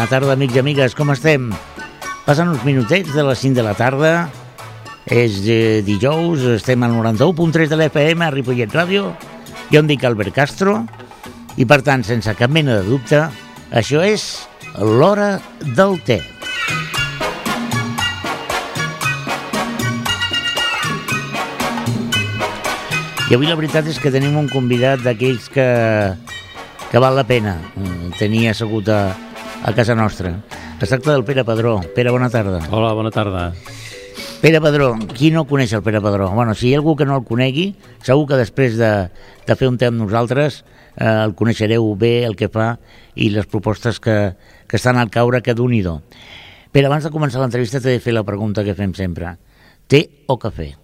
Bona tarda, amics i amigues, com estem? Passen uns minutets de les 5 de la tarda, és dijous, estem al 91.3 de l'FM a Ripollet Ràdio, jo em dic Albert Castro, i per tant, sense cap mena de dubte, això és l'Hora del Té. I avui la veritat és que tenim un convidat d'aquells que val la pena tenir assegut a casa nostra. Es tracta del Pere Padró. Pere, bona tarda. Hola, bona tarda. Pere Padró, qui no coneix el Pere Padró? Bueno, si hi ha algú que no el conegui, segur que després de fer un té amb nosaltres el coneixereu bé, el que fa i les propostes que estan al caure, que d'un-i-do. Pere, abans de començar l'entrevista t'he de fer la pregunta que fem sempre. Té o cafè?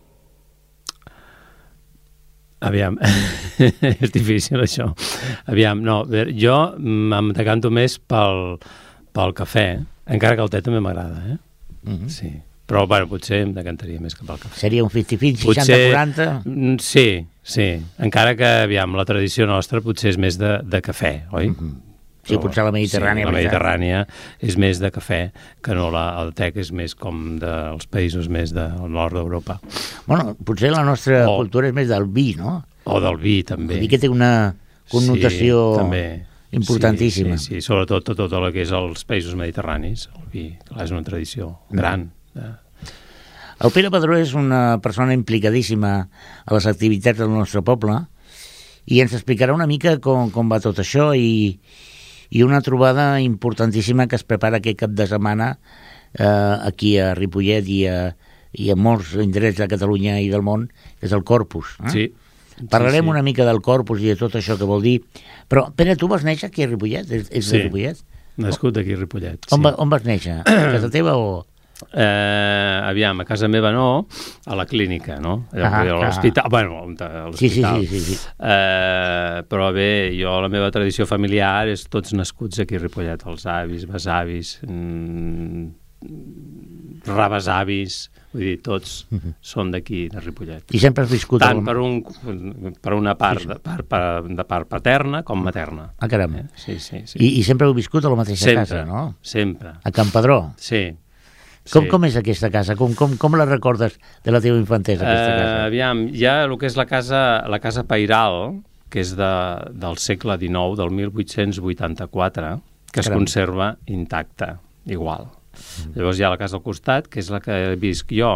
Aviam, és difícil això. Aviam, no, jo em decanto més pel cafè, encara que el té també m'agrada, eh? Mm-hmm. Sí, però bueno, potser em decantaria més cap al cafè. Seria un 50-50, 60-40? Sí, encara que, aviam, la tradició nostra potser és més de cafè, oi? Mm-hmm. Sí, potser la Mediterrània. Sí, la Mediterrània és més de cafè que no el té, que és més com dels països més del nord d'Europa. Bueno, potser la nostra cultura és més del vi, no? O del vi, també. El vi que té una connotació importantíssima. Sí, sobretot tot el que és els països mediterranis. El vi, clar, és una tradició gran. El Pere Padró és una persona implicadíssima a les activitats del nostre poble i ens explicarà una mica com va tot això i una trobada importantíssima que es prepara aquest cap de setmana aquí a Ripollet i a molts indrets de Catalunya i del món, que és el Corpus. Sí. Parlarem una mica del Corpus i de tot això que vol dir. Però, Pere, tu vas néixer aquí a Ripollet? És de Ripollet? Nascut aquí a Ripollet. On vas néixer? A casa teva o...? Aviam, a casa meva no, a la clínica, no? A l'hospital, bueno, a l'hospital. Sí. Però bé, jo, la meva tradició familiar és tots nascuts aquí a Ripollet, els avis, besavis, rebesavis, vull dir, tots són d'aquí, de Ripollet. I sempre has viscut... Tant per una part de part paterna com materna. Ah, caram. Sí. I sempre heu viscut a la mateixa casa, no? Sempre. A Can Padró? Sí. Com és aquesta casa? Com la recordes de la teva infantesa, aquesta casa? Aviam, hi ha el que és la casa Pairal, que és del segle XIX, del 1884, que es conserva intacta, igual. Llavors hi ha la casa al costat, que és la que visc jo,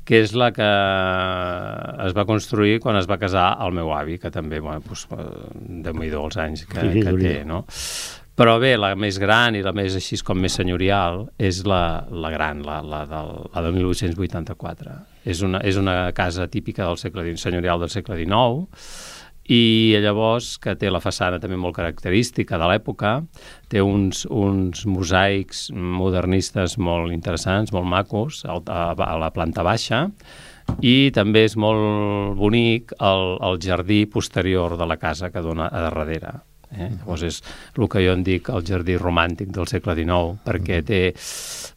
que és la que es va construir quan es va casar el meu avi, que també, bueno, déu-n'hi-do els anys que té, no? Però bé, la més gran i la més així com més senyorial és la gran, la del 1884. És una casa típica del senyorial del segle XIX i llavors que té la façana també molt característica de l'època, té uns mosaics modernistes molt interessants, molt macos, a la planta baixa, i també és molt bonic el jardí posterior de la casa que dona a darrere. Llavors és el que jo en dic el jardí romàntic del segle XIX, perquè té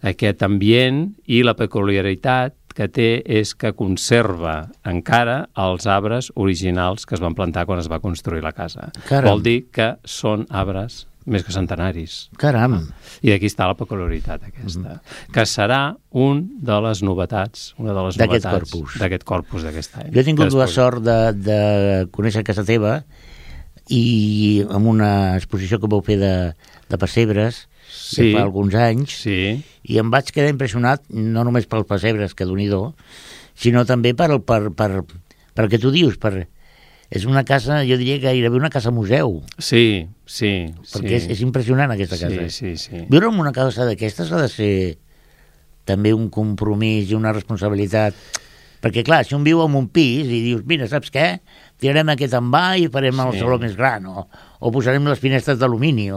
aquest ambient i la peculiaritat que té és que conserva encara els arbres originals que es van plantar quan es va construir la casa. Caram. Vol dir que són arbres més que centenaris. Caram! I aquí està la peculiaritat aquesta, que serà una de les novetats d'aquest corpus d'aquest any. Jo he tingut la sort de conèixer casa teva i amb una exposició que vau fer de pessebres que fa alguns anys, i em vaig quedar impressionat no només pels pessebres, que d'un-i-do, sinó també per que tu dius, és una casa, jo diria gairebé una casa museu. Sí. Perquè és impressionant aquesta casa. Sí. Viure en una casa d'aquestes ha de ser també un compromís i una responsabilitat. Perquè, clar, si un viu en un pis i dius, mira, saps què? Tirarem aquest envà i farem el saló més gran, o posarem les finestres d'alumini,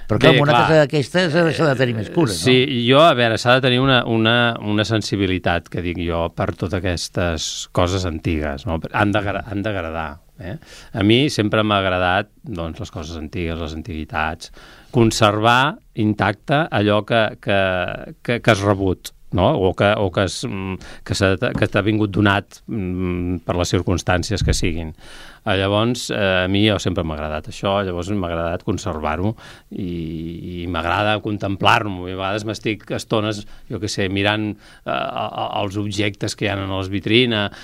Però clar, una casa d'aquestes s'ha de tenir més cura, no? Sí, jo, a veure, s'ha de tenir una sensibilitat, que dic jo, per totes aquestes coses antigues, no? Han d'agradar. A mi sempre m'ha agradat les coses antigues, les antiguitats, conservar intacte allò que has rebut, no? O que t'ha vingut donat per les circumstàncies que siguin. Llavors, a mi sempre m'ha agradat això, llavors m'ha agradat conservar-ho i m'agrada contemplar-ho. A vegades m'estic estones, jo què sé, mirant els objectes que hi ha en les vitrines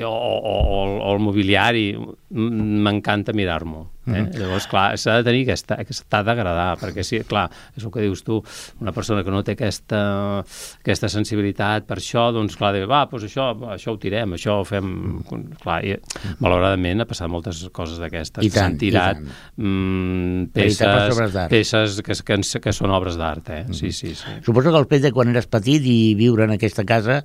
o el mobiliari. M'encanta mirar-m'ho. Llavors, clar, s'ha de tenir t'ha d'agradar, perquè sí, clar, és el que dius tu, una persona que no té aquesta sensibilitat per això, doncs clar, doncs això ho tirem, això ho fem... Clar, i malauradament ha passat moltes coses d'aquestes. S'han tirat peces que són obres d'art, Sí. Suposo que el fet de quan eres petit i viure en aquesta casa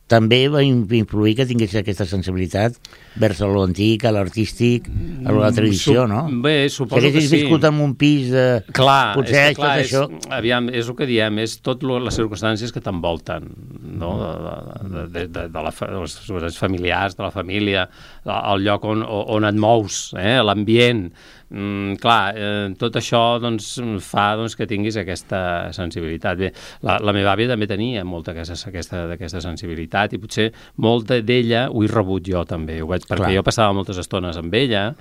també va influir que tingués aquesta sensibilitat vers l'antic, a l'artístic, a la tradició, no? Bé, suposo que sí. Si haguessis viscut en un pis de... Clar, potser tot això... Aviam, és el que diem, és tot les circumstàncies que t'envolten, no? De les circumstàncies familiars, de la família, el lloc on et mous, l'ambient... tot això fa que tinguis aquesta sensibilitat. Bé, la meva àvia també tenia molta d'aquesta sensibilitat i potser molta d'ella ho he rebut jo també, perquè jo passava moltes estones amb ella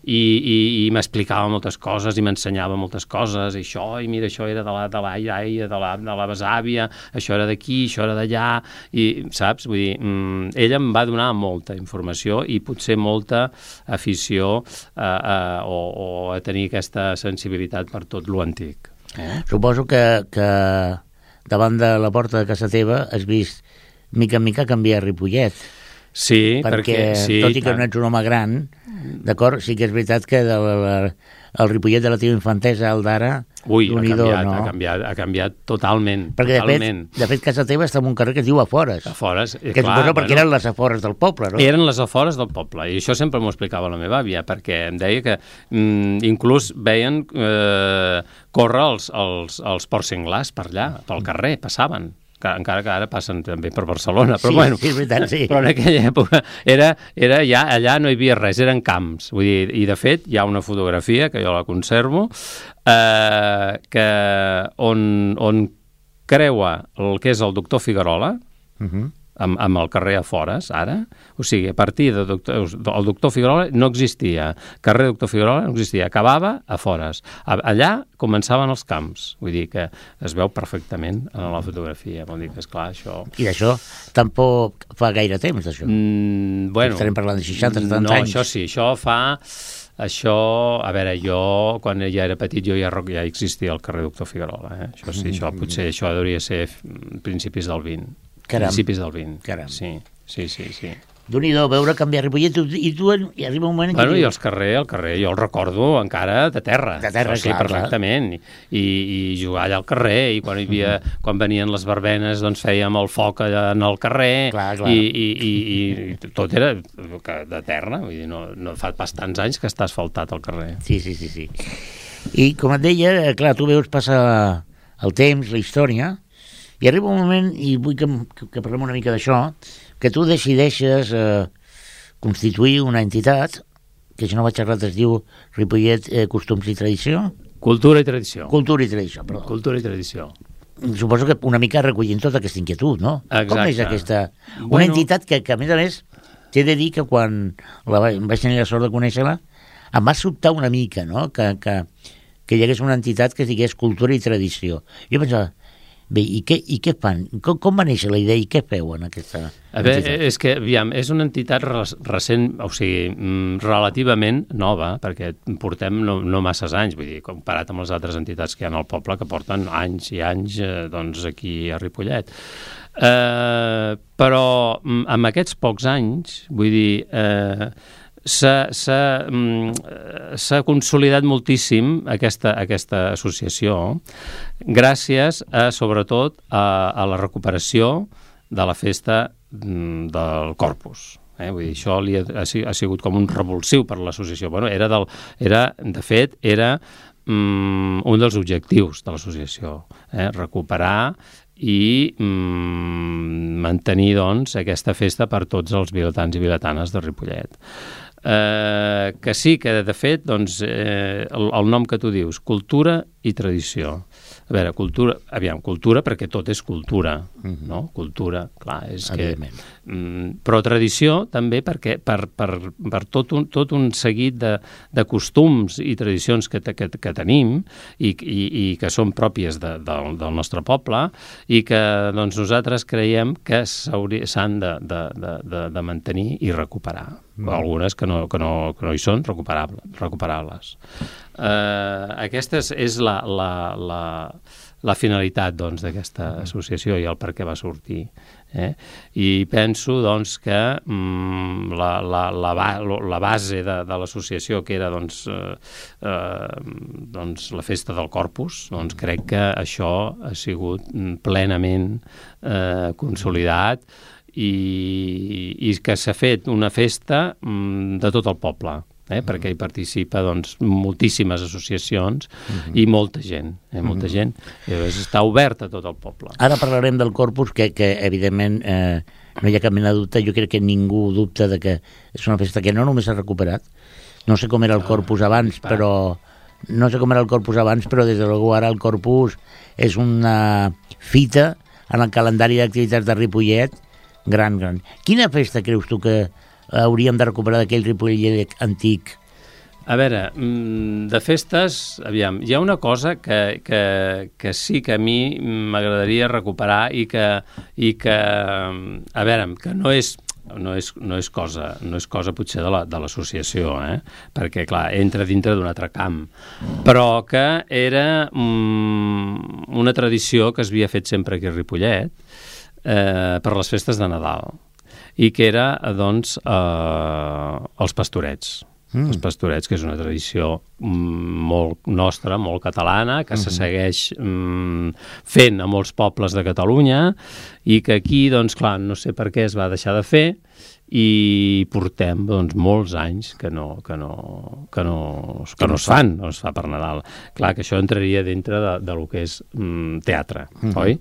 i m'explicava moltes coses i m'ensenyava moltes coses, i mira, això era de la iaia, de la besàvia, això era d'aquí, això era d'allà, i saps? Vull dir, ella em va donar molta informació i potser molta afició o a tenir aquesta sensibilitat per tot lo antic. Suposo que davant de la porta de casa teva has vist mica en mica canviar Ripollet. Sí, perquè tot i que no ets un home gran, d'acord, sí que és veritat que el Ripollet de la teva infantesa al d'ara, ha canviat totalment. Perquè de fet casa teva està en un carrer que es diu Afores. Afores, que suposo perquè eren les afores del poble, no? Eren les afores del poble, i això sempre m'ho explicava la meva àvia, perquè em deia que inclús veien córrer els porcs senglars per allà, pel carrer, passaven. Encara que ara passen també per Barcelona, però bueno, sí, és veritat, sí. Però en aquella època era ja, allà no hi havia res, eren camps, vull dir, i de fet hi ha una fotografia que jo la conservo on creua el que és el doctor Figuerola amb el carrer Afores, ara, o sigui, a partir del doctor Figuerola no existia, carrer Doctor Figuerola no existia, acabava Afores. Allà començaven els camps, vull dir que es veu perfectament en la fotografia, vol dir que, esclar, això... I d'això tampoc fa gaire temps, d'això? Bueno... Estarem parlant de 60-70 anys. No, això sí, això fa... Això, a veure, jo, quan ja era petit, ja existia el carrer Doctor Figuerola, Això sí, potser això hauria de ser principis del 20. Caram. Principis del 20. Caram. Sí. Déu-n'hi-do, veure canviar Ripollet, i tu hi arriba un moment... Bueno, i el carrer, jo el recordo encara de terra. De terra, sí, clar. Perfectament. I jugar allà al carrer, i quan venien les verbenes, doncs fèiem el foc allà en el carrer, clar. I tot era de terra, vull dir, no fa pas tants anys que està asfaltat el carrer. Sí. I com et deia, clar, tu veus passar el temps, la història, i arriba un moment, i vull que parlem una mica d'això, que tu decideixes constituir una entitat, que si no vaig errat es diu Ripollet Costums i Tradició? Cultura i Tradició. Cultura i Tradició, perdó. Cultura i Tradició. Suposo que una mica recollint tota aquesta inquietud, no? Exacte. Com és aquesta... Una entitat que a més, t'he de dir que quan vaig tenir la sort de conèixer-la, em va sobtar una mica, no?, que hi hagués una entitat que digués Cultura i Tradició. Jo pensava, bé, i què fan? Com va néixer la idea i què feu en aquesta entitat? És que, aviam, és una entitat recent, o sigui, relativament nova, perquè portem no masses anys, vull dir, comparat amb les altres entitats que hi ha al poble, que porten anys i anys doncs, aquí a Ripollet. Però amb aquests pocs anys, vull dir... S'ha consolidat moltíssim aquesta associació gràcies sobretot a la recuperació de la festa del Corpus. Vull dir, això ha sigut com un revulsiu per l'associació. Bueno, de fet, era un dels objectius de l'associació, recuperar i mantenir doncs, aquesta festa per tots els vilatans i vilatanes de Ripollet. Que sí, que de fet doncs, el nom que tu dius, Cultura i Tradició, A veure, cultura perquè tot és cultura, no? Cultura, clar, és que... Però tradició també perquè per tot un seguit de costums i tradicions que tenim i que són pròpies del nostre poble i que doncs, nosaltres creiem que s'han de mantenir i recuperar. Algunes que no hi són recuperables. Aquesta és la finalitat doncs, d'aquesta associació i el per què va sortir. I penso doncs, que la base de l'associació, que era doncs, la festa del Corpus, doncs, crec que això ha sigut plenament consolidat i que s'ha fet una festa de tot el poble, perquè hi participa doncs, moltíssimes associacions i molta gent, molta gent. Llavors està obert a tot el poble. Ara parlarem del Corpus, que evidentment no hi ha cap mena de dubte. Jo crec que ningú dubta de que és una festa que no només s'ha recuperat. No sé com era el Corpus abans, però des de luego ara el Corpus és una fita en el calendari d'activitats de Ripollet gran. Quina festa creus tu que hauríem de recuperar d'aquell Ripollet antic? A veure, de festes, aviam, hi ha una cosa que sí que a mi m'agradaria recuperar i que a veure, que no és cosa potser de l'associació, perquè, clar, entra dintre d'un altre camp, però que era una tradició que s'havia fet sempre aquí a Ripollet per les festes de Nadal, i que era, doncs, els pastorets. Els pastorets, que és una tradició molt nostra, molt catalana, que se segueix fent a molts pobles de Catalunya i que aquí, doncs, clar, no sé per què es va deixar de fer i portem doncs, molts anys que no es fan, no es fa per Nadal. Clar que això entraria dintre del que és teatre, oi?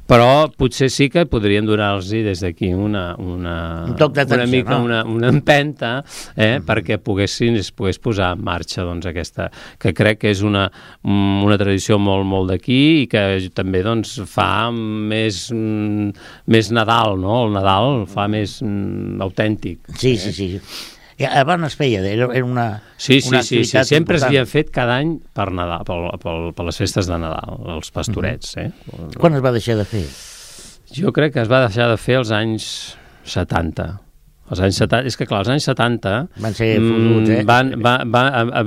Però potser sí que podríem donar-los des d'aquí una mica, una empenta, perquè es pogués posar en marxa doncs, aquesta, que crec que és una tradició molt d'aquí i que també doncs, fa més Nadal, no? El Nadal fa més autèntic. Sí. Abans es feia, era una activitat sempre s'havia fet cada any per Nadal, per les festes de Nadal, els pastorets. Quan es va deixar de fer? Jo crec que es va deixar de fer als anys 70. Els anys 70, és que clar, els anys 70 van ser fotuts,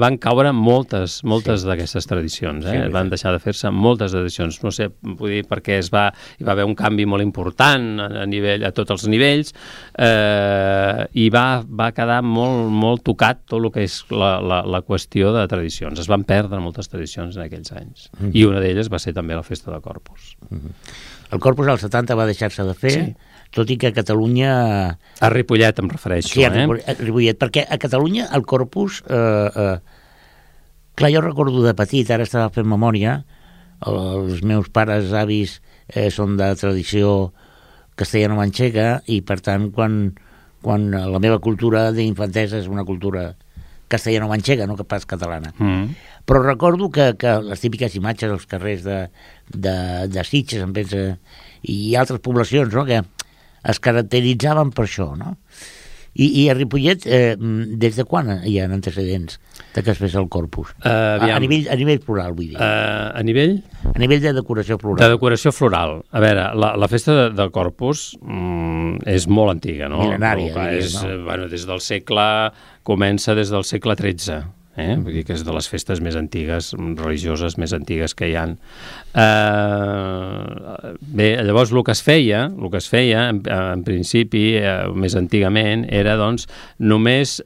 van caure moltes d'aquestes tradicions, van deixar de fer-se moltes tradicions, no sé, vull dir, perquè hi va haver un canvi molt important a tots els nivells, i va quedar molt tocat tot el que és la qüestió de tradicions. Es van perdre moltes tradicions en aquells anys, i una d'elles va ser també la festa de Corpus. El Corpus als 70 va deixar-se de fer, tot i que a Catalunya... A Ripollet em refereixo, Sí, a Ripollet, perquè a Catalunya el Corpus... Clar, jo recordo de petit, ara estava fent memòria, els meus pares, avis, són de tradició castellano-manxega, i per tant, quan la meva cultura d'infantesa és una cultura castellano-manxega, no pas catalana. Però recordo que les típiques imatges als carrers de Sitges, em pensa, i altres poblacions, no?, que es caracteritzaven per això, no? I a Ripollet, des de quan hi ha antecedents de que es fes el Corpus? A nivell floral, vull dir. A nivell? A nivell de decoració floral. De decoració floral. A veure, la festa del Corpus és molt antiga, no? Mil·lenària. Comença des del segle XIII. Vull dir que és de les festes més antigues, religioses més antigues que hi ha. Bé, llavors el que es feia en principi, més antigament, era doncs només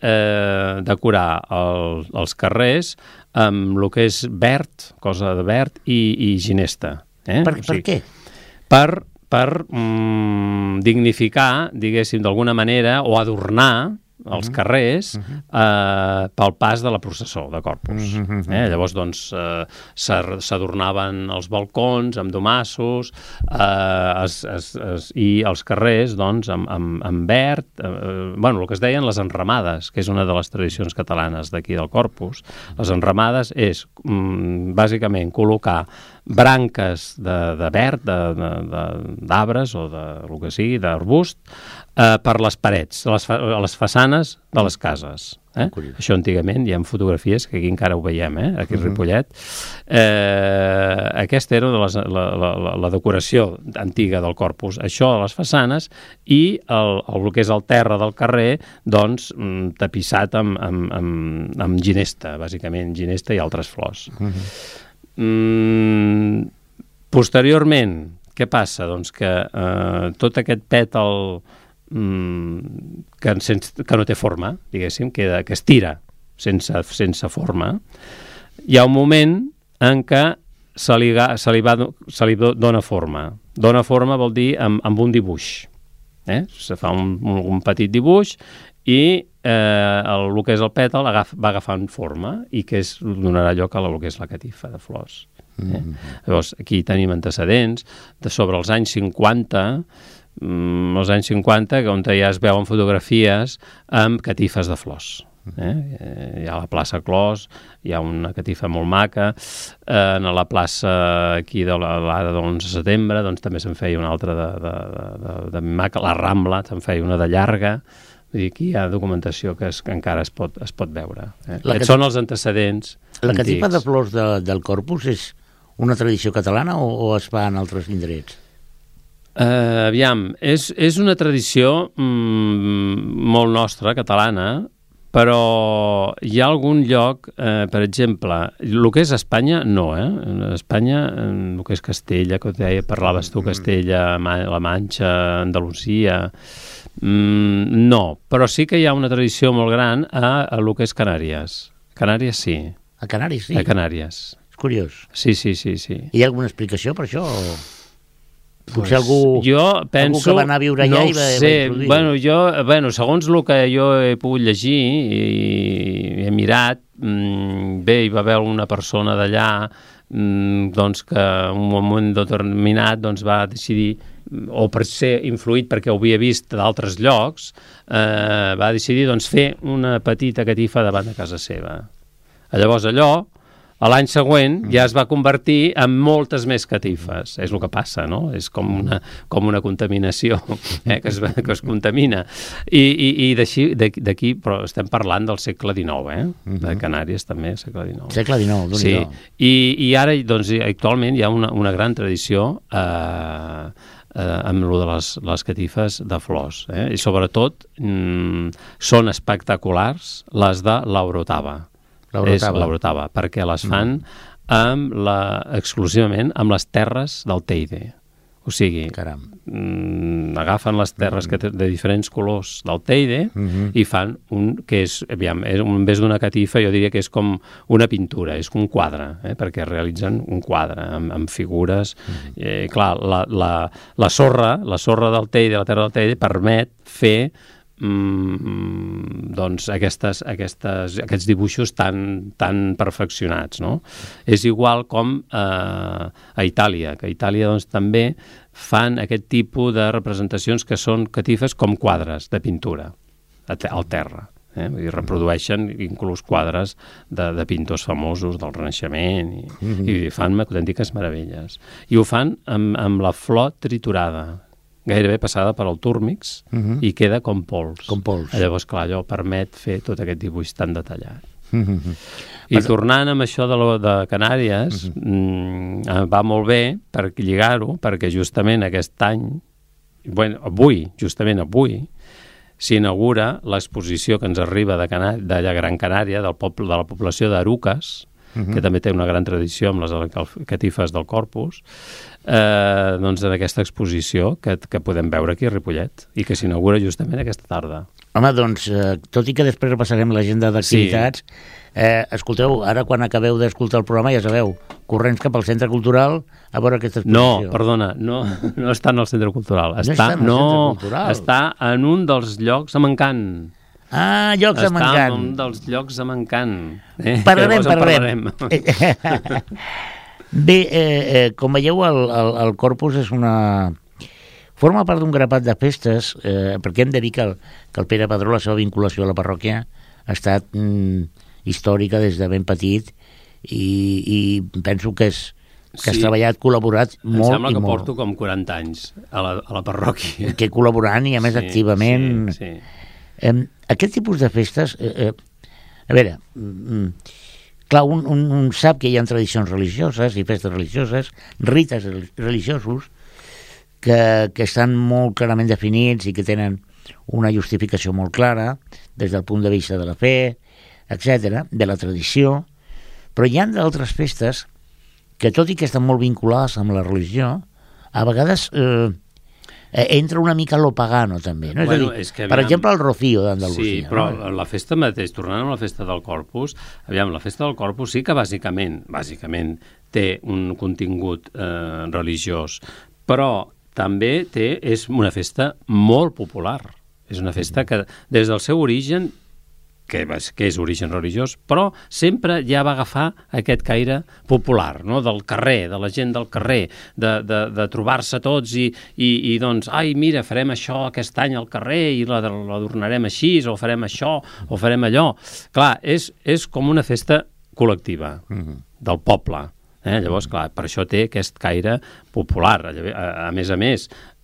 decorar els carrers amb el que és verd, cosa de verd, i ginesta. Per què? Per dignificar, diguéssim, d'alguna manera, o adornar els carrers pel pas de la processó de Corpus. Llavors, doncs, s'adornaven els balcons amb domassos i els carrers, doncs, amb verd, el que es deien les enramades, que és una de les tradicions catalanes d'aquí del Corpus. Les enramades és, bàsicament, col·locar branques de verd, d'arbres o del que sigui, d'arbust, per les parets, a les façanes de les cases. Això antigament, hi ha fotografies, que aquí encara ho veiem, aquí a Ripollet. Aquesta era la decoració antiga del Corpus. Això a les façanes i el que és el terra del carrer, doncs, tapissat amb ginesta, bàsicament, ginesta i altres flors. Posteriorment, què passa? Doncs que tot aquest pètal que no té forma, diguéssim, que es tira sense forma, hi ha un moment en què se li dona forma. Dona forma vol dir amb un dibuix. Se fa un petit dibuix i el que és el pètal va agafant forma i que donarà lloc a el que és la catifa de flors. Llavors, aquí tenim antecedents de sobre els anys 50, on ja es veuen fotografies amb catifes de flors. Hi ha la plaça Clos, hi ha una catifa molt maca, a la plaça aquí de l'ara de l'11 de setembre doncs també se'n feia una altra de maca, la Rambla se'n feia una de llarga. Vull dir, aquí hi ha documentació que encara es pot veure. Aquests són els antecedents antics. La catifa de flors del Corpus és una tradició catalana o es fa en altres indrets? Aviam, és una tradició molt nostra, catalana, però hi ha algun lloc, per exemple, el que és Espanya, no, Espanya, el que és Castella, que parlaves tu, Castella, la Manxa, Andalusia, no, però sí que hi ha una tradició molt gran a el que és Canàries. Canàries sí. A Canàries sí? A Canàries. És curiós. Sí. Hi ha alguna explicació per això? Potser algú que va anar a viure allà i va introduir. Segons el que jo he pogut llegir i he mirat, bé, hi va haver una persona d'allà doncs que en un moment determinat doncs va decidir, o per ser influït perquè ho havia vist d'altres llocs, va decidir doncs fer una petita catifa davant de casa seva. Llavors allò, a l'any següent ja es va convertir en moltes més catifes. És el que passa, no? És com una contaminació que es contamina. I d'aquí, però estem parlant del segle XIX, de Canàries també, segle XIX. Segle XIX, d'un-hi-do. Sí, i ara, doncs, actualment hi ha una gran tradició amb lo de les catifes de flors. I sobretot són espectaculars les de l'Orotava. L'Orotava, perquè les fan exclusivament amb les terres del Teide. O sigui, agafen les terres de diferents colors del Teide i fan que és, en vez d'una catifa, jo diria que és com una pintura, és un quadre, perquè realitzen un quadre amb figures. Clar, la sorra del Teide, la terra del Teide, permet fer doncs aquests dibuixos tan perfeccionats, no? És igual com a Itàlia, que a Itàlia doncs també fan aquest tipus de representacions que són catifes com quadres de pintura al terra. I reprodueixen inclús quadres de pintors famosos del Renaixement i fan autèntiques meravelles. I ho fan amb la flor triturada, gairebé passada per al túrmix i queda com pols. Llavors, clar, allò permet fer tot aquest dibuix tan detallat. I tornant amb això de Canàries, va molt bé per lligar-ho, perquè justament aquest any, avui, s'inaugura l'exposició que ens arriba de Gran Canària, de la població d'Arucas, que també té una gran tradició amb les catifes del Corpus, doncs en aquesta exposició que podem veure aquí a Ripollet i que s'inaugura justament aquesta tarda. Home, doncs, tot i que després repassarem l'agenda d'activitats, escolteu, ara quan acabeu d'escoltar el programa, ja sabeu, corrents cap al Centre Cultural a veure aquesta exposició. No, perdona, no està en el Centre Cultural. Està en un dels llocs a Mancant. Llocs a Mancant. Està en un dels llocs a Mancant. Parlarem. Bé, com veieu, el Corpus és forma part d'un grapat de festes, perquè hem de dir que el Pere Padró, la seva vinculació a la parròquia, ha estat històrica des de ben petit i penso que és que has treballat, col·laborat molt i molt. Em sembla que porto com 40 anys a la parròquia. Que col·laborant i a més activament. Sí. Aquest tipus de festes, a veure, clar, un sap que hi ha tradicions religioses i festes religioses, rites religiosos, que estan molt clarament definits i que tenen una justificació molt clara des del punt de vista de la fe, etc., de la tradició, però hi ha d'altres festes que, tot i que estan molt vinculades amb la religió, a vegades entra una mica lo pagano també, no? Bueno, és a dir, per exemple, el Rocío d'Andalusia. Sí, però la festa mateix, tornant a la festa del Corpus, la festa del Corpus sí que bàsicament té un contingut religiós, però també és una festa molt popular. És una festa que des del seu origen, que és origen religiós, però sempre ja va agafar aquest caire popular, no? Del carrer, de la gent del carrer, de trobar-se tots i doncs, ai, mira, farem això aquest any al carrer i l'adornarem així, o farem això, o farem allò. Clar, és com una festa col·lectiva del poble. Llavors, clar, per això té aquest caire popular. A més,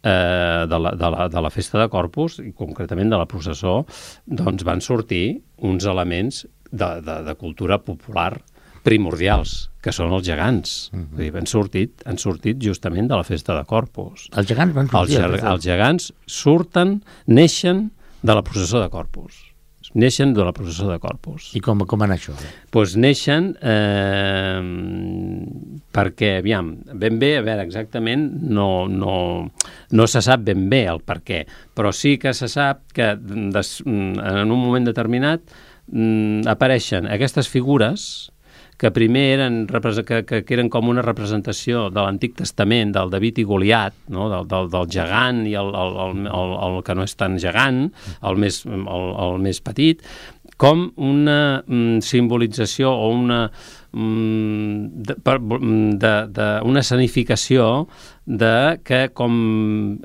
de la festa de Corpus, i concretament de la processó, doncs van sortir uns elements de cultura popular primordials, que són els gegants. Vull dir, han sortit justament de la festa de Corpus. Els gegants van sortir? Els gegants neixen de la processó de Corpus. Neixen de la processó de Corpus. I com va anar això? Doncs neixen perquè, aviam, ben bé, a veure, exactament no se sap ben bé el per què, però sí que se sap que en un moment determinat apareixen aquestes figures que primer que eren com una representació de l'Antic Testament, del David i Goliat, no? del gegant i el que no és tan gegant, el més petit, com una simbolització o una escenificació de que com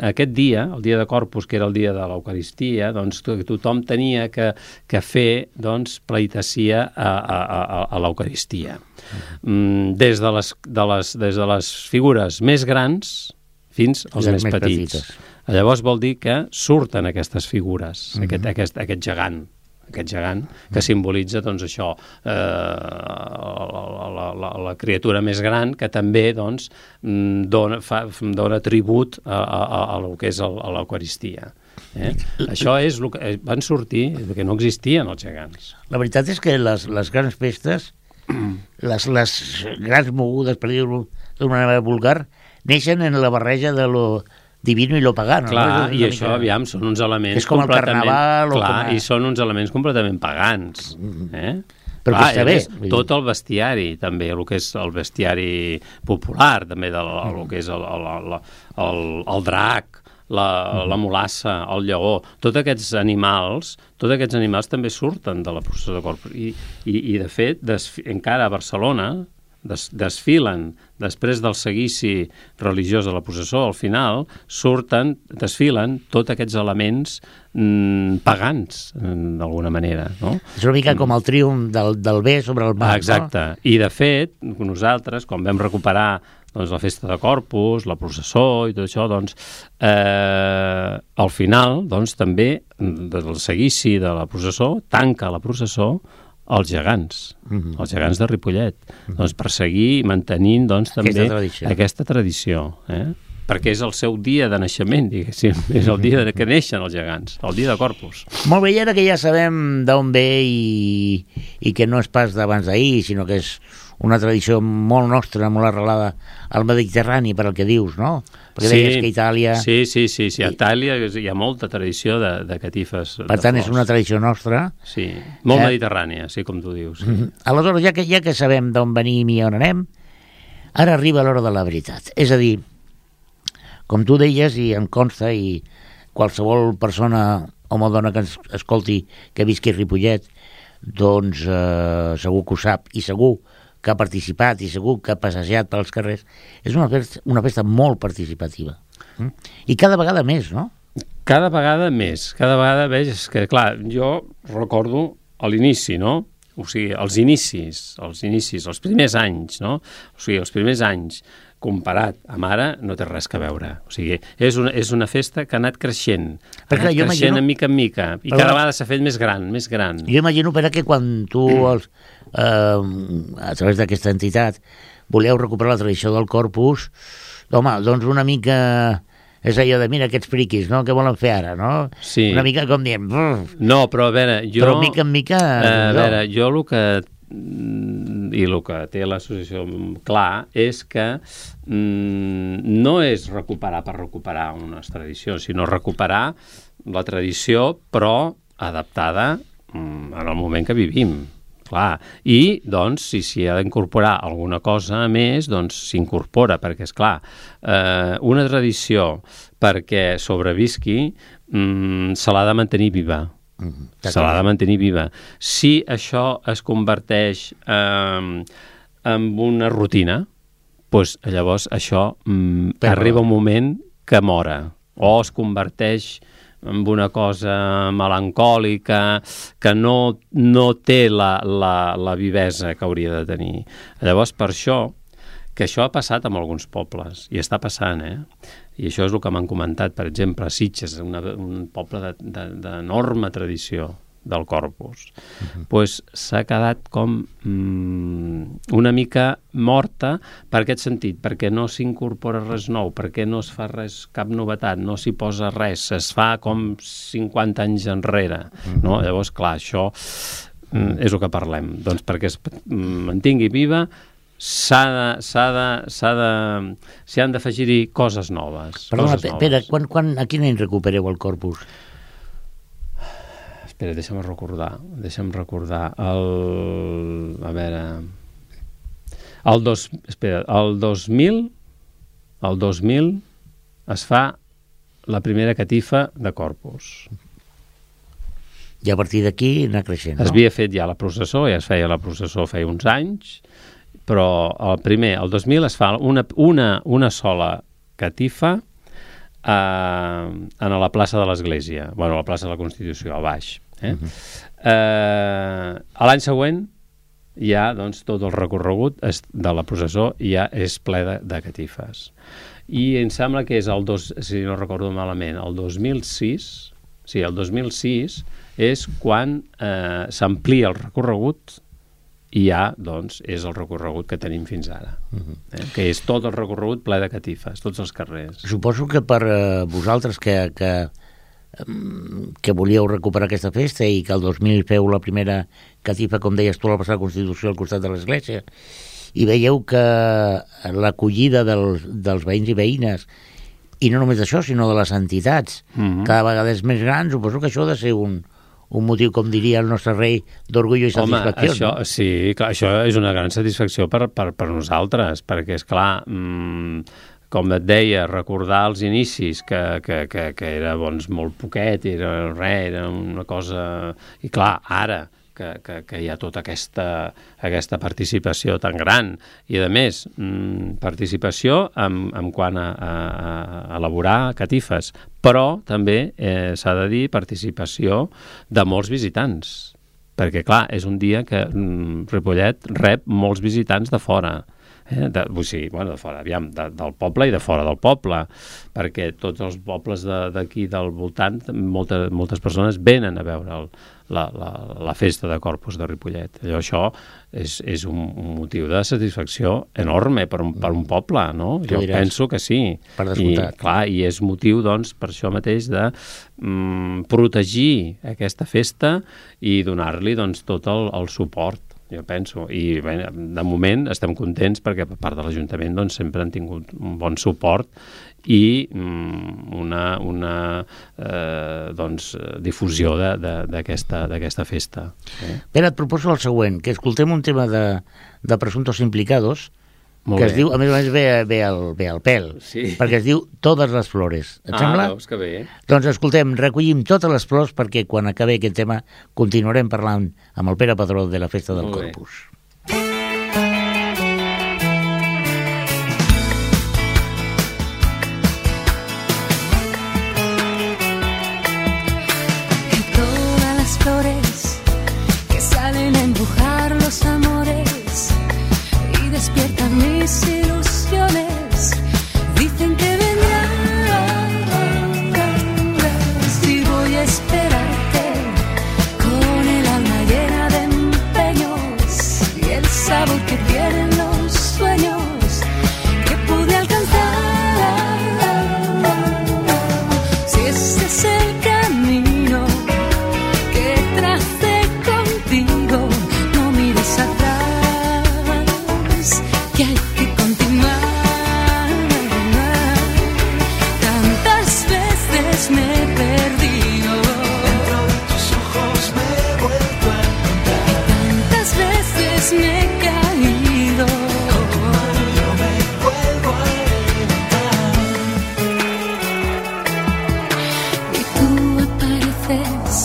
aquest dia, el dia de Corpus, que era el dia de l'Eucaristia, doncs tothom tenia que fer pleitessia a l'Eucaristia. Des de les figures més grans fins als més petits. Llavors vol dir que surten aquestes figures, aquest gegant que simbolitza doncs això, la criatura més gran, que també doncs dona tribut a el que és l'Eucaristia. Això és el que van sortir, que no existien els gegants. La veritat és que les grans festes, les grans mogudes, per dir-ho d'una manera vulgar, neixen en la barreja de lo divino i lo pagano. Clar, i això, aviam, són uns elements... És com el carnaval... Clar, i són uns elements completament pagans. Però que està bé. Tot el bestiari, també, el que és el bestiari popular, també, el que és el drac, la mulassa, el lleó, tots aquests animals també surten de la processó de Corpus. I de fet, encara a Barcelona desfilen, després del seguici religiós de la processó, al final desfilen tots aquests elements pagans, d'alguna manera, no? És una mica com el triomf del bé sobre el mal. Exacte. No? I, de fet, nosaltres, quan vam recuperar la festa de Corpus, la processó i tot això, al final, també, del seguici de la processó, tanca la processó els gegants de Ripollet, per seguir mantenint també aquesta tradició, perquè és el seu dia de naixement, diguéssim, és el dia que neixen els gegants, el dia de Corpus. Molt bé, i ara que ja sabem d'on ve i que no és pas d'abans d'ahir, sinó que és una tradició molt nostra, molt arrelada al Mediterrani, per al que dius, no? Perquè deies que Itàlia... Sí, a Itàlia hi ha molta tradició de catifes. Per tant, és una tradició nostra. Sí, molt mediterrània, sí, com tu dius. Sí. Aleshores, ja que sabem d'on venim i on anem, ara arriba l'hora de la veritat. És a dir, com tu deies, i em consta, i qualsevol persona, home o dona que ens escolti, que visqui a Ripollet, doncs segur que ho sap, i segur que ha participat i segur que ha passejat pels carrers, és una festa molt participativa. I cada vegada més, no? Cada vegada més. Cada vegada veig que, clar, jo recordo a l'inici, no? o sigui, els inicis, els primers anys, no? O sigui, els primers anys, comparat amb ara, no té res que veure. O sigui, és una festa que ha anat creixent, de mica en mica, i cada vegada s'ha fet més gran. Jo imagino, Pere, que quan tu, a través d'aquesta entitat, voleu recuperar la tradició del Corpus, home, doncs una mica... És allò de, mira, aquests friquis, no?, què volen fer ara, no? Sí. Una mica com diem... No, però a veure, jo... Però mica en mica... A veure, jo el que té l'associació clar és que no és recuperar per recuperar unes tradicions, sinó recuperar la tradició, però adaptada en el moment que vivim. Clar. I, doncs, si s'hi ha d'incorporar alguna cosa més, doncs s'incorpora, perquè, esclar, una tradició perquè sobrevisqui se l'ha de mantenir viva. Se l'ha de mantenir viva. Si això es converteix en una rutina, doncs llavors això arriba un moment que mora, o es converteix amb una cosa melancòlica que no té la vivesa que hauria de tenir. Llavors, per això, que això ha passat en alguns pobles, i està passant, i això és el que m'han comentat, per exemple, a Sitges, un poble d'enorme tradició del Corpus, doncs s'ha quedat com una mica morta per aquest sentit, perquè no s'incorpora res nou, perquè no es fa res, cap novetat, no s'hi posa res, es fa com 50 anys enrere, no? Llavors, clar, això és el que parlem, doncs perquè es mantingui viva s'hi han d'afegir-hi coses noves. Perdona, Pere, a quin any recupereu el Corpus? Espera, deixa'm recordar. El 2000 es fa la primera catifa de Corpus. I a partir d'aquí anar creixent, no? Es havia fet ja la processó, ja es feia la processó feia uns anys, però el 2000 es fa una sola catifa a la plaça de l'Església, a la plaça de la Constitució, a baix. A l'any següent ja, doncs, tot el recorregut de la processó ja és ple de catifes. I em sembla que és si no recordo malament, el 2006, sí, el 2006 és quan s'amplia el recorregut i ja, doncs, és el recorregut que tenim fins ara, que és tot el recorregut ple de catifes, tots els carrers. Suposo que per vosaltres que volíeu recuperar aquesta festa i que el 2000 feu la primera catifa, com deies tu, a la plaça de la Constitució al costat de l'església, i veieu que l'acollida dels veïns i veïnes, i no només d'això, sinó de les entitats, cada vegada és més gran, suposo que això ha de ser un motiu, com diria el nostre rei, d'orgull i satisfacció. Això, no? Sí, clar, això és una gran satisfacció per nosaltres, perquè, esclar, com et deia, recordar els inicis, que era, doncs, molt poquet, era una cosa... I clar, ara, que hi ha tota aquesta participació tan gran, i a més, participació en quant a elaborar catifes, però també s'ha de dir participació de molts visitants, perquè clar, és un dia que Ripollet rep molts visitants de fora, de fora, aviam, del poble i de fora del poble, perquè tots els pobles d'aquí del voltant, moltes persones venen a veure la festa de Corpus de Ripollet. Això és un motiu de satisfacció enorme per un poble, no? Jo penso que sí. Per descomptat. I, clar, i és motiu, doncs, per això mateix de protegir aquesta festa i donar-li, doncs, tot el suport, jo penso. I bé, de moment estem contents perquè per part de l'Ajuntament, doncs, sempre han tingut un bon suport i una difusió d'aquesta festa. Pere, et proposo el següent, que escoltem un tema de Presuntos Implicados, que es diu, a més ve al pèl, sí, perquè es diu Todas las Flores. Et sembla? Veus que bé. Doncs escoltem, recollim totes les flors perquè quan acabi aquest tema continuarem parlant amb el Pere Padró de la Festa del Corpus. Todas las flores que salen a empujar esperarte con el alma llena de empeños y el sabor que tienen los sueños que pude alcanzar. Si ese es el camino que tracé contigo, no mires atrás, que hay que continuar. Tantas veces me he perdido, dentro de tus ojos me he vuelto a encontrar. y tantas veces me he caído. Yo me vuelvo a levantar. Y tú apareces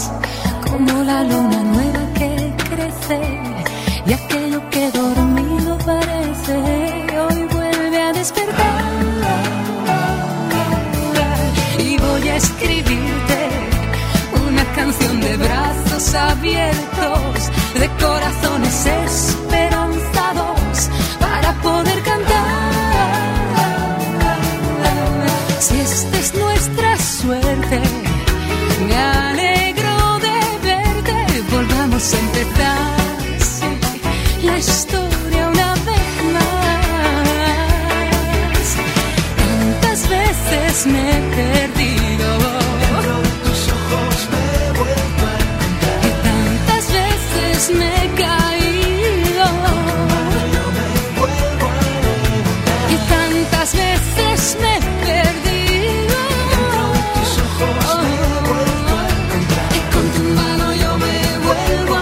como la luna nueva que crece, y aquello que dormido parece hoy vuelve a despertar. Y voy a escribirte una canción de brazos abiertos, de corazones esperanzados, para poder cantar. Si esta es nuestra suerte, me alegro de verte. Volvamos a empezar, sí, la historia una vez más. Tantas veces me he perdido, Dentro de tus ojos me he vuelto a encontrar. y tantas veces me he caído, Yo me vuelvo a levantar. y tantas veces me he perdido. Dentro de tus ojos me he vuelto a encontrar. Y con tu mano yo me vuelvo a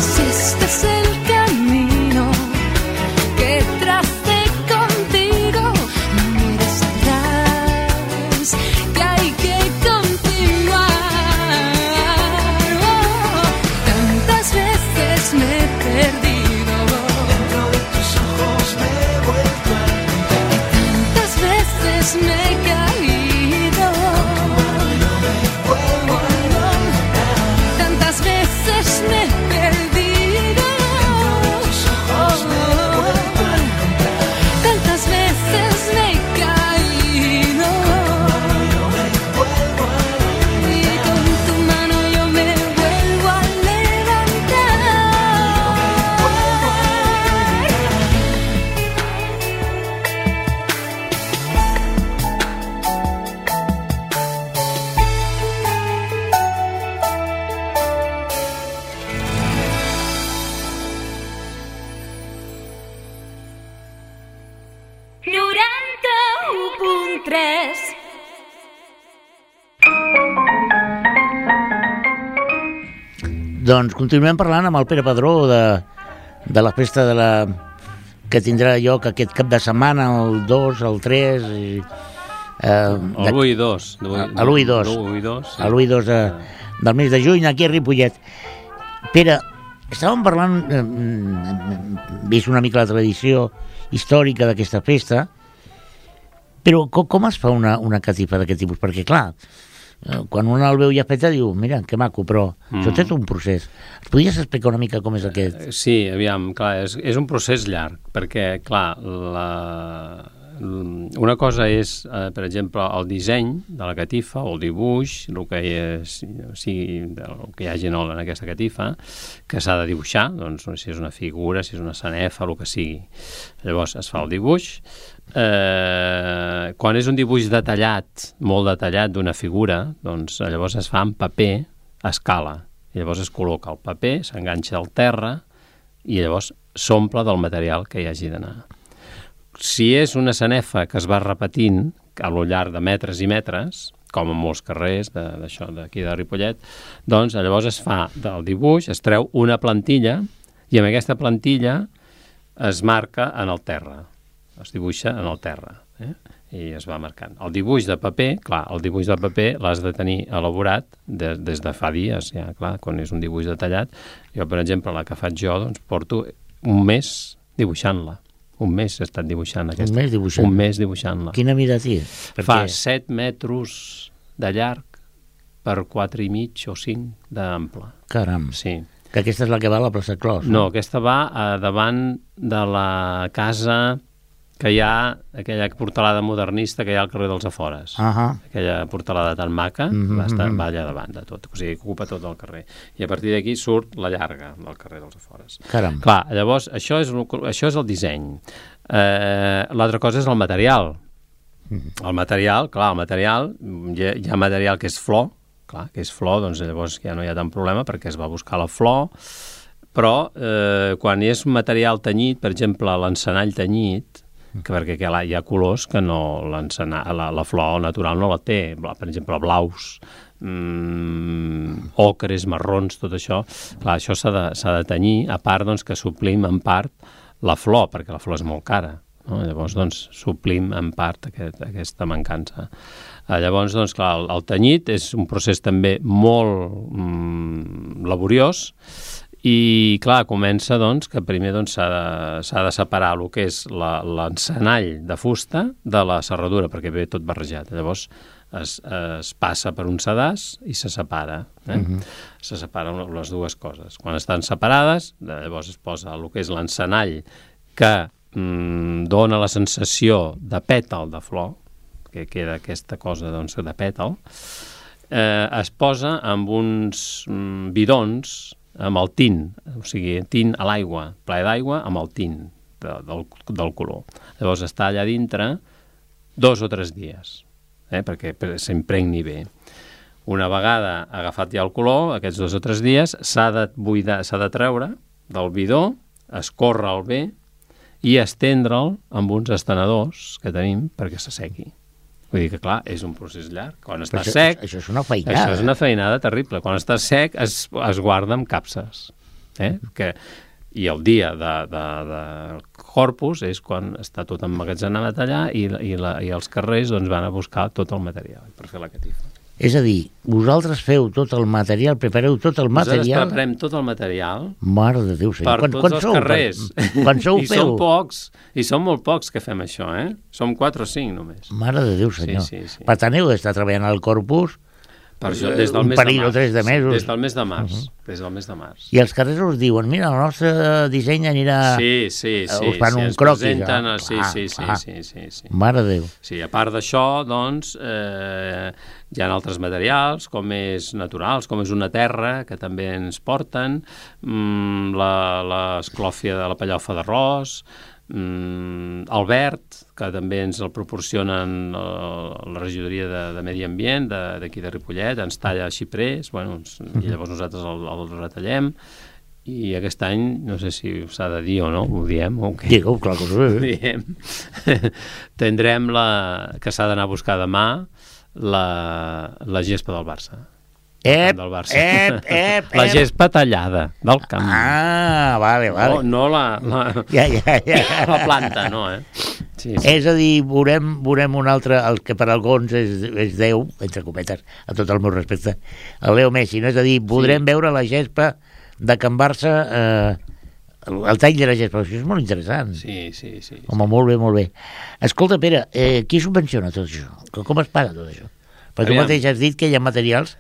Si este es el camino que tracé contigo, no mires atrás, que hay que continuar. Tantas veces me he perdido, Dentro de tus ojos me he vuelto a encontrar. tantas veces me he caído, tantas veces me he perdido, tantas veces me he caído, y con tu mano yo me vuelvo a levantar. Doncs continuem parlant amb el Pere Padró de la festa que tindrà lloc aquest cap de setmana, el 2, el 3... El 1 i 2. A l'1 i 2. A l'1 i 2 del mes de juny, aquí a Ripollet. Pere, estàvem parlant, vist una mica la tradició històrica d'aquesta festa, però com es fa una catifa d'aquest tipus? Perquè, clar, quan un el veu ja feta diu, mira, que maco, però això té un procés. Es podries explicar una mica com és aquest? Sí, aviam, clar, és un procés llarg, perquè, clar, una cosa és, per exemple, el disseny de la catifa o el dibuix, el que hi hagi en aquesta catifa, que s'ha de dibuixar, doncs si és una figura, si és una sanefa, el que sigui. Llavors es fa el dibuix. Quan és un dibuix detallat, molt detallat d'una figura, doncs llavors es fa en paper a escala. I llavors es col·loca el paper, s'enganxa al terra i llavors s'omple del material que hi hagi d'anar. Si és una sanefa que es va repetint a lo llarg de metres i metres, com en molts carrers d'això d'aquí de Ripollet, doncs llavors es fa del dibuix, es treu una plantilla i amb aquesta plantilla es marca en el terra, es dibuixa en el terra, i es va marcant. El dibuix de paper, clar, el dibuix de paper l'has de tenir elaborat des de fa dies, ja, clar, quan és un dibuix detallat. Jo, per exemple, la que faig jo, doncs porto un mes dibuixant-la. Un mes he estat dibuixant aquesta. Un mes dibuixant-la? Un mes dibuixant-la. Quina mida té? Fa 7 metres de llarg per 4 i mig o 5 d'ample. Caram. Sí. Que aquesta és la que va a la plaça Clos. No, aquesta va davant de la casa que hi ha, aquella portalada modernista que hi ha al carrer dels Afores. Aquella portalada tan maca, va allà davant de tot, o sigui, ocupa tot el carrer. I a partir d'aquí surt la llarga del carrer dels Afores. Caram. Clar, llavors, això és el disseny. L'altra cosa és el material. El material, clar, hi ha material que és flor, clar, que és flor, doncs llavors ja no hi ha tant problema perquè es va buscar la flor, però quan és material tenyit, per exemple, l'encenall tenyit, perquè hi ha colors que no la flor natural no la té, per exemple, blaus, ocres, marrons, tot això. Clar, això s'ha de tenyir, a part doncs, que suplim en part la flor, perquè la flor és molt cara. No? Llavors, doncs, suplim en part aquesta mancança. Llavors, doncs, clar, el tenyit és un procés també molt laboriós. I, clar, comença, doncs, que primer s'ha de separar el que és l'encenall de fusta de la serradura, perquè ve tot barrejat. Llavors es passa per un sedàs i se separa. Se separen les dues coses. Quan estan separades, llavors es posa el que és l'encenall que dona la sensació de pètal de flor, que queda aquesta cosa de pètal, es posa amb uns bidons amb el tint, o sigui, tint a l'aigua, plaer d'aigua amb el tint del color. Llavors està allà dintre 2 o 3 dies, perquè s'impregni bé. Una vegada agafat ja el color, aquests 2 o 3 dies, s'ha de buidar, s'ha de treure del bidó, escórrer-lo bé i estendre'l amb uns estenedors que tenim perquè s'assequi. Vull dir que, clar, és un procés llarg. Quan està sec... Això és una feinada. Això és una feinada terrible. Quan està sec es guarda amb capses. I el dia de Corpus és quan està tot emmagatzemat allà i els carrers doncs, van a buscar tot el material per fer la catifa. És a dir, vosaltres feu tot el material, prepareu tot el material... Nosaltres preparem tot el material... Mare de Déu, senyor. Per tots els carrers. Quan sou I feu? I som molt pocs que fem això, Som 4 o 5 només. Mare de Déu, senyor. Sí. Per tant, heu d'estar treballant al Corpus per això, des del un mes parell de o 3 de mesos. Des del mes de març. Des del mes de març. I els carrers us diuen, mira, el nostre disseny anirà... Sí. Us fan un croquis. Sí. Mare de Déu. Sí, a part d'això, doncs, hi ha altres materials, com és naturals, com és una terra, que també ens porten, l'esclòfia de la pellofa d'arròs, el verd, que també ens el proporcionen la regidoria de Medi Ambient d'aquí de Ripollet, ens talla xiprers, i llavors nosaltres el retallem, i aquest any, no sé si s'ha de dir o no, ho diem o què? Digueu, clar que ho diem. Tindrem que s'ha d'anar a buscar demà la gespa del Barça. La gespa tallada del camp. Vale. No la planta, no, Sí. És a dir, veurem un altre, el que per alguns és Déu, entre cometes, a tot el meu respecte, el Leo Messi, no? És a dir, podrem veure la gespa de Can Barça, el tall de la gespa, això és molt interessant. Sí. Home, molt bé. Escolta, Pere, qui subvenciona tot això? Com es paga tot això? Perquè tu mateix has dit que hi ha materials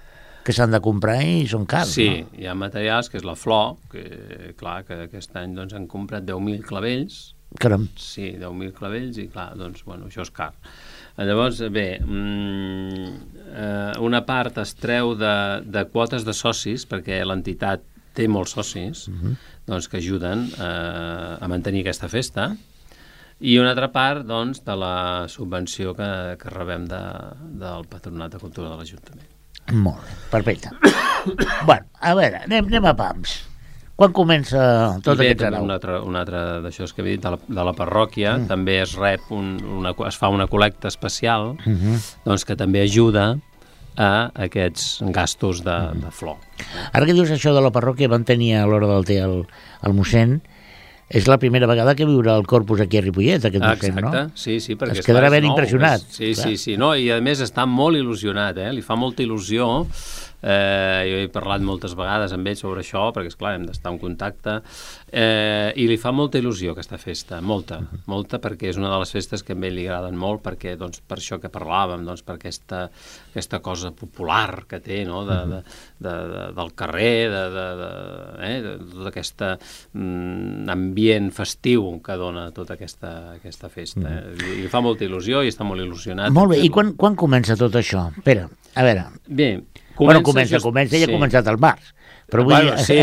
que s'han de comprar i són cars, sí, no? Hi ha materials, que és la flor, que clar, que aquest any doncs, han comprat 10.000 clavells. Caram. Sí, 10.000 clavells i clar, doncs, això és car. Llavors, bé, una part es treu de quotes de socis, perquè l'entitat té molts socis, doncs, que ajuden a mantenir aquesta festa, i una altra part, doncs, de la subvenció que rebem del Patronat de Cultura de l'Ajuntament. Molt bé, perfecte. Bueno, a veure, anem a pams. Quan comença tot aquest sarau? Un altre d'això que he dit, de la parròquia, també es rep es fa una col·lecta especial, doncs que també ajuda a aquests gastos de flor. Ara que dius això de la parròquia, van tenir a l'hora del té el mossèn, és la primera vegada que viurà el Corpus aquí a Ripollet, aquest mossèn, no? Exacte, sí, perquè es quedarà ben nou, impressionat. Sí, no, i a més està molt il·lusionat, li fa molta il·lusió. Jo he parlat moltes vegades amb ell sobre això, perquè esclar, hem d'estar en contacte, i li fa molta il·lusió aquesta festa, molta, perquè és una de les festes que a ell li agraden molt, perquè, doncs, per això que parlàvem, doncs, per aquesta cosa popular que té, no?, del carrer, de tot aquest ambient festiu que dona tota aquesta festa. I li fa molta il·lusió i està molt il·lusionat. Molt bé, i quan comença tot això? Espera, a veure... Bé, comença, ella ha començat al març. Però bueno, sí,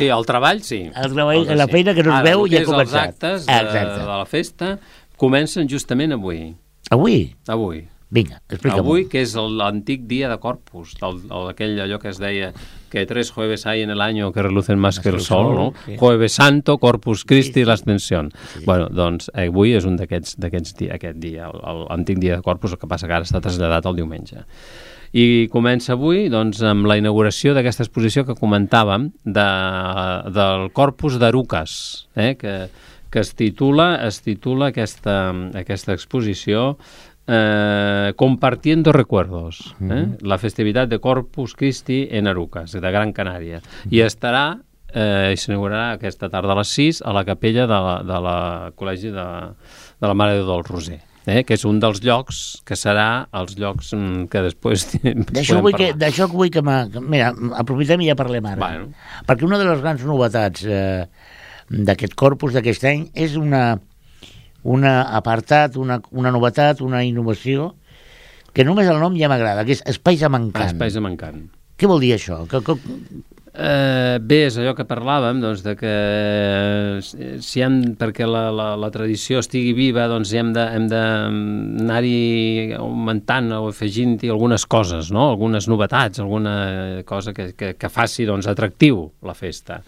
el treball sí. El treball, la feina que no es veu ja ha començat. Els actes de la festa comencen justament avui. Avui? Vinga, explica'm. Avui, que és l'antic dia de Corpus, allò que es deia que 3 jueves hay en el año que relucen más que el sol, no? Sí. Jueves Santo, Corpus Christi, l'Ascensión. Sí. Bueno, doncs avui és un d'aquests dies, aquest dia, l'antic dia de Corpus, el que passa que ara està traslladat al diumenge. I comença avui doncs, amb la inauguració d'aquesta exposició que comentàvem del Corpus d'Arucas, que es titula aquesta exposició Compartiendo Recuerdos, la festivitat de Corpus Christi en Arucas, de Gran Canària. I s'inaugurarà aquesta tarda a les 6 a la capella de la Col·legi de la Mare de Déu del Roser. Que és un dels llocs que serà els llocs que després d'això vull que mira, aprofitem i ja parlem ara. Bueno. Perquè una de les grans novetats d'aquest Corpus d'aquest any és una apartat, una novetat, una innovació que només el nom ja m'agrada, que és Espais a Mancant. Espais a Mancant. Què vol dir això? Bé, és allò que parlàvem, doncs, de que perquè la tradició estigui viva, doncs hem d'anar-hi augmentant o afegint-hi algunes coses, no? Algunes novetats, alguna cosa que faci, doncs, atractiu la festa.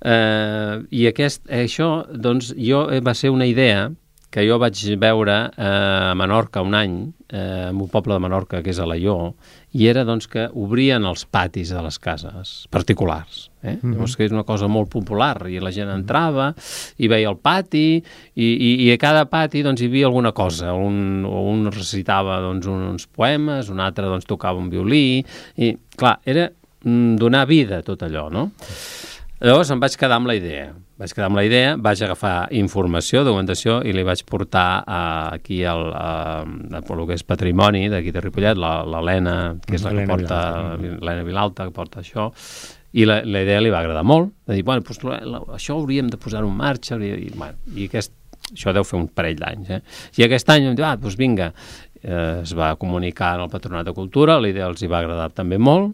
I això, doncs, va ser una idea que jo vaig veure a Menorca un any, en un poble de Menorca que és Alaior, i era doncs, que obrien els patis de les cases particulars. Llavors que és una cosa molt popular, i la gent entrava i veia el pati, i a cada pati doncs, hi havia alguna cosa. Un recitava doncs, uns poemes, un altre doncs, tocava un violí, i clar, era donar vida a tot allò, no? Llavors em vaig quedar amb la idea. Vaig agafar informació, documentació, i li vaig portar aquí el que és patrimoni d'aquí de Ripollet, l'Helena, que és la que porta, l'Helena Vilalta, que porta això, i la idea li va agradar molt, de dir, bueno, doncs, això hauríem de posar-ho en marxa, i això deu fer un parell d'anys, I aquest any em diu, doncs vinga, es va comunicar al Patronat de Cultura, la idea els hi va agradar també molt,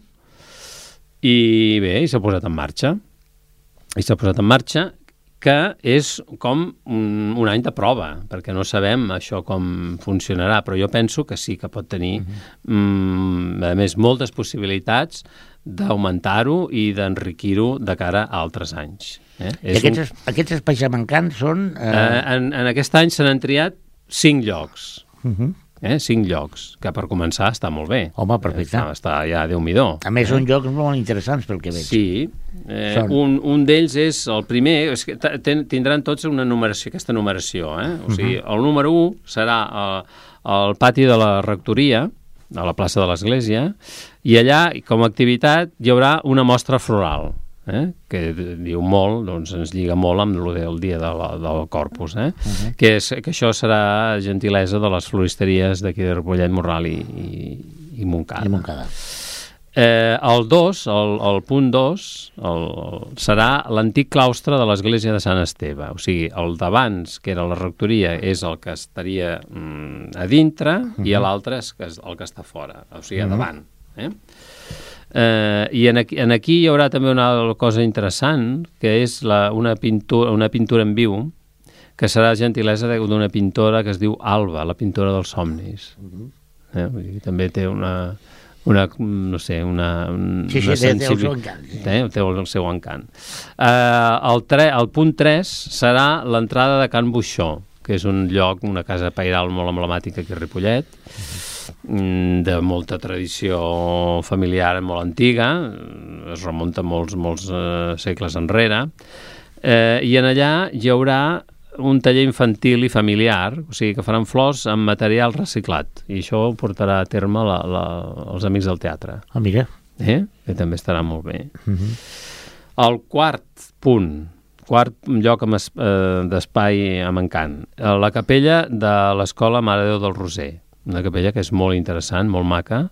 i bé, s'ha posat en marxa. Que és com un any de prova, perquè no sabem això com funcionarà, però jo penso que sí que pot tenir, a més, moltes possibilitats d'augmentar-ho i d'enriquir-ho de cara a altres anys. I aquests espais mancants són... En aquest any se n'han triat 5 llocs. 5 llocs, que per començar està molt bé. Home, perfecte. Està ja Déu-m'hi-do. A més, són llocs molt interessants pel que veig. Sí. Un d'ells és el primer, és que tindran tots una numeració, aquesta numeració. O sigui, el número 1 serà al pati de la rectoria, a la plaça de l'Església, i allà, com a activitat, hi haurà una mostra floral. Que diu molt, doncs ens lliga molt amb el dia del Corpus, que això serà gentilesa de les floristeries d'aquí de Ripollet, Morral i Montcada. El 2, el punt 2, serà l'antic claustre de l'església de Sant Esteve, o sigui, el d'abans, que era la rectoria, és el que estaria a dintre, i l'altre és el que està fora, o sigui, a davant. I aquí hi haurà també una cosa interessant, que és una pintura en viu, que serà gentilesa d'una pintora que es diu Alba, la pintora dels somnis. També té té el seu encant. El punt 3 serà l'entrada de Can Buixó, que és un lloc, una casa pairal molt emblemàtica aquí a Ripollet, de molta tradició familiar molt antiga, es remunta molts segles enrere, i en allà hi haurà un taller infantil i familiar, o sigui que faran flors amb material reciclat, i això ho portarà a terme els amics del teatre. Ah, mira. Que també estarà molt bé. El quart lloc d'espai amb encant, la capella de l'Escola Mare de Déu del Roser, una capella que és molt interessant, molt maca,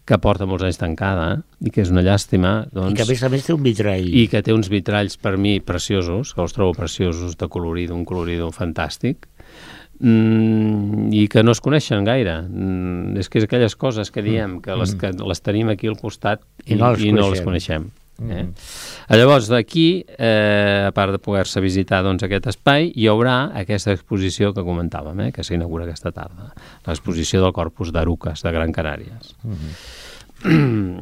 que porta molts anys tancada, i que és una llàstima. Doncs, I que a més té un vitrall. I que té uns vitralls, per mi, preciosos, que els trobo preciosos, de colorido, un colorido fantàstic, i que no es coneixen gaire. És que és aquelles coses que diem, que les tenim aquí al costat i no les coneixem. Llavors, d'aquí, a part de poder-se visitar aquest espai, hi haurà aquesta exposició que comentàvem, que s'inaugura aquesta tarda, l'exposició del Corpus d'Arucas, de Gran Canàries.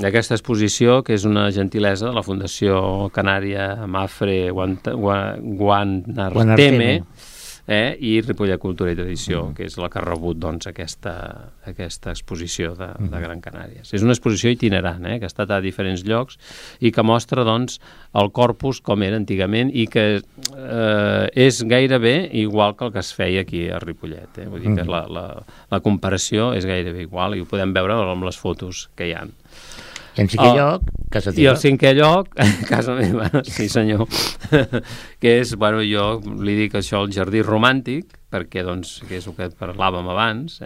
Aquesta exposició, que és una gentilesa de la Fundació Canària Mafre Guanarteme, i Ripollet Cultura i Tradició, que és la que ha rebut aquesta exposició de Gran Canàries. És una exposició itinerant, que ha estat a diferents llocs i que mostra el corpus com era antigament i que és gairebé igual que el que es feia aquí a Ripollet. Vull dir que la comparació és gairebé igual i ho podem veure amb les fotos que hi ha. I en cinquè lloc, casa teva. I el cinquè lloc, casa meva, sí senyor, que és, jo li dic això, el jardí romàntic, perquè, que és el que parlàvem abans,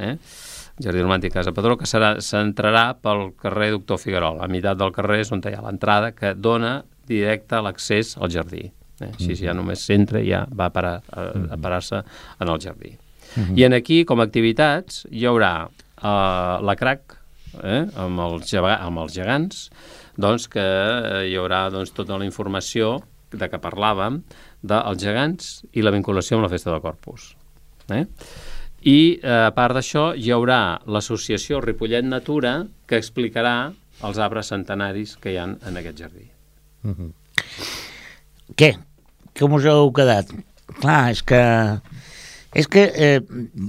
jardí romàntic Casa Padró, que s'entrarà pel carrer Doctor Figuerol. A meitat del carrer és on hi ha l'entrada, que dona directe l'accés al jardí. Així ja només s'entra i ja va a parar-se en el jardí. I aquí, com a activitats, hi haurà la crac, amb els gegants, que hi haurà tota la informació de què parlàvem dels gegants i la vinculació amb la Festa del Corpus. I a part d'això hi haurà l'associació Ripollet Natura, que explicarà els arbres centenaris que hi ha en aquest jardí. Què? Com us heu quedat? Clar, és que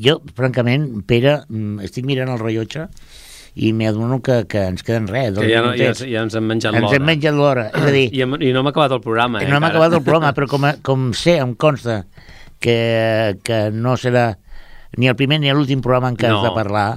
jo, francament, Pere, estic mirant el rellotge i m'adono que ens queden res. Que ja ens hem menjat l'hora. Ens hem menjat l'hora, és a dir... I no hem acabat el programa, No hem acabat el programa, però com sé, em consta que no serà ni el primer ni l'últim programa en què has de parlar,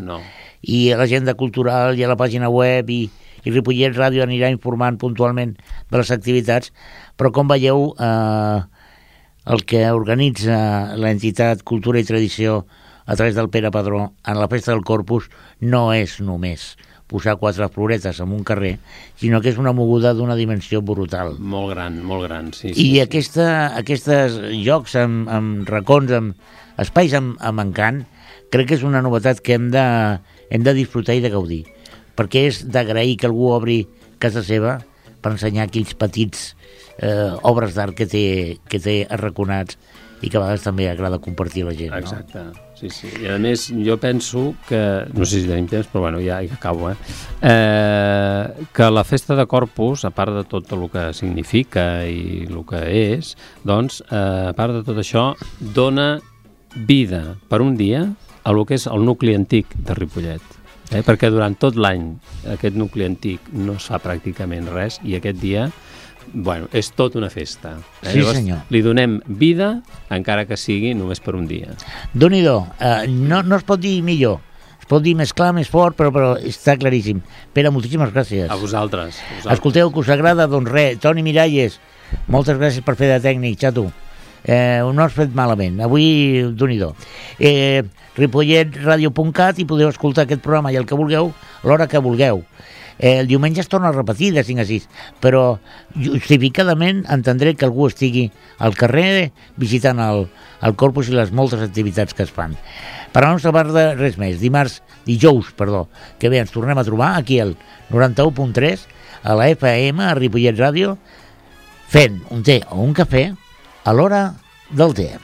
i a l'agenda cultural i a la pàgina web i Ripollet Ràdio anirà informant puntualment de les activitats, però com veieu, el que organitza l'entitat Cultura i Tradició a través del Pere Padró en la Festa del Corpus no és només posar 4 floretes en un carrer, sinó que és una moguda d'una dimensió brutal. Molt gran, sí. I aquests llocs amb racons, amb espais amb encant, crec que és una novetat que hem de disfrutar i de gaudir, perquè és d'agrair que algú obri casa seva per ensenyar aquells petits obres d'art que té arraconats i que a vegades també agrada compartir a la gent. Exacte, sí. I a més, jo penso que, no sé si tenim temps, però ja acabo, que la Festa de Corpus, a part de tot el que significa i el que és, a part de tot això, dona vida per un dia a el que és el nucli antic de Ripollet. Perquè durant tot l'any aquest nucli antic no es fa pràcticament res i aquest dia és tot una festa. Sí, llavors, senyor. Li donem vida, encara que sigui només per un dia. Déu-n'hi-do, no es pot dir millor, es pot dir més clar, més fort, però està claríssim. Pere, moltíssimes gràcies. A vosaltres. Escolteu, que us agrada, Toni Miralles, moltes gràcies per fer de tècnic, xato. No has fet malament, avui Déu-n'hi-do. ripolletradio.cat i podeu escoltar aquest programa i el que vulgueu, l'hora que vulgueu. El diumenge es torna a repetir de 5 a 6, però justificadament entendré que algú estigui al carrer visitant el Corpus i les moltes activitats que es fan. Per la nostra part, res més. Dijous, que bé, ens tornem a trobar aquí al 91.3 a la FM, a Ripollet Ràdio, fent un té o un cafè a l'hora del té.